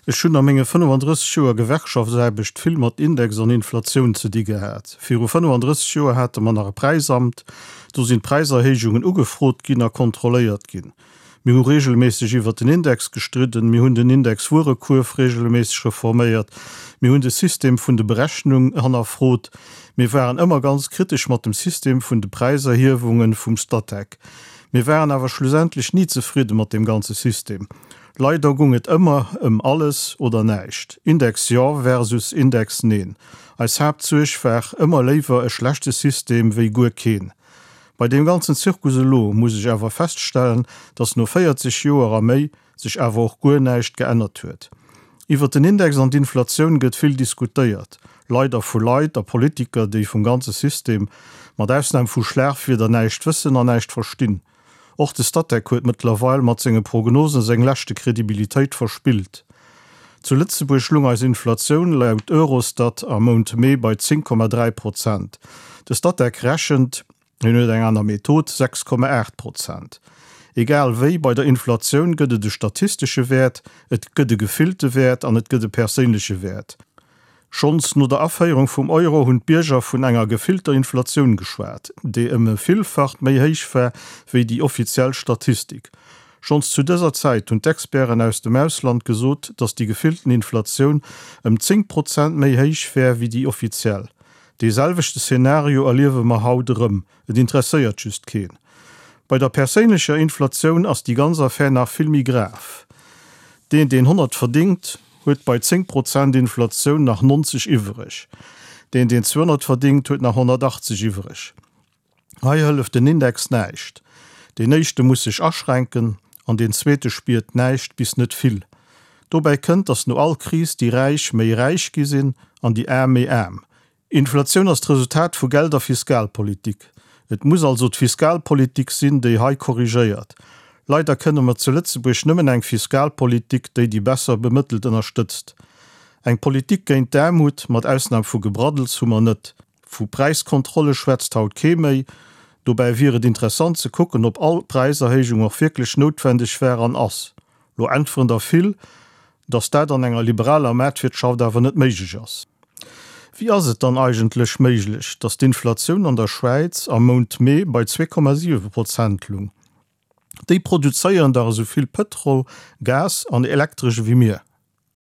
Ech hunn a menge 35 Joer Gewerkschaftsaarbecht vill mat Index an Inflatioun ze di gehat. Viru 35 Joer hate mer nach e Präisamt. Do sinn d'Präiserhéijungen ugefrot ginn a kontrolléiert ginn. Mir hu regelméisseg iwwert den Index gestridden, mir hunn den Index-Wuerekuerf regelméisseg reforméiert, mir hunn de System vun de Berechnung hannerfrot. Mir waren ëmmer ganz kritesch mat dem System vun de Präiserhiewungen vum Statec. Mir waren awer schlussendlech ni zefridde mat deem ganze System. Leider gung et ëmmer ëm alles oder näischt, Index jo versus Index neen. Eis Haaptsuerg war ëmmer léiwer e schlechte System wéi guer keen. Bei deem ganzen Zirkus elo muss ech awer feststellen, dass no 40 Joer a méi sech awer och guer näischt geännert huet. Iwwert den Index an d'Inflatioun gëtt vill diskutéiert, leider vu Leit a Politiker, déi vum ganze System, mat Ausnam vu Schlagwierder, näischt wëssen an näischt verstinn. Och de Statec huet mëttlerweil mat senge Prognosen seng leschte Kredibilitéit verspillt. Zu Lëtzebuerg lung eis Inflatioun laut Eurostat am Mount Mee bei 10,3 Prozent. De Statec rechent, hien huet eng aner Method, 6,8 Prozent. Egal wéi, bei der Inflatioun gëtt et e statistesche Wäert, et gëtt e gefillte Wäert an et gëtt e perséinleche Wäert. Schonns no der Aféierung vum Euro hunn d'Bierger vun enger gefillter Inflatioun geschwat, déi ëm e Villfacht méi héich war wéi déi offiziell Statistik. Schonns zu dëser Zäit hunn d'Experten aus dem Ausland gesot, datt déi gefillten Inflatioun ëm 10 Prozent méi héich wär wéi déi offiziell. Dee selwechte Szenario erliewe mer haut erëm, et interesséiert just keen. Bei der perséinlecher Inflatioun ass déi ganz Affär nach vill méi grav. Deen, deen 100 verdingt, huet bei 10 Prozent Inflatioun nach 90 iwwereg. Deen, deen 200 verdingt, huet nach 180 iwwereg. Hei hëlleft den Index näischt. Deen éischte muss sech aschränken an deen zweete spiert näischt bis net vill. Dobäi kënnt, datt no all Kris déi Räich méi räich gi sinn an déi Aarm méi aarm. Inflatioun ass d'Resultat vu Geld a Fiskalpolitik. Et muss also d'Fiskalpolitik sinn, déi hei korrigéiert. Leider kënne mer zu Lëtzebuerg nëmmen eng Fiskalpolitik, déi déi besser Bemëttelt ënnerstëtzt. Eng Politik géint d'Aarmut, mat Ausnam vu Gebraddels, hu mer net. Vu Präiskontrolle schwätzt haut kee méi. Dobäi wier et interessant ze kucken, ob all Präiserhéijung och wierklech noutwendeg war an ass. Lo äntweren der vill, dass dat an enger liberaler Maartwirtschaft awer net méiglech ass. Wéi ass et dann eigentlech méiglech, dass d'Inflatioun an der Schwäiz am Mount Mee bei 2,7 Prozent lung? Déi produzéieren dach esou vill Pëtrol, Gas an Elektresch ewéi mir.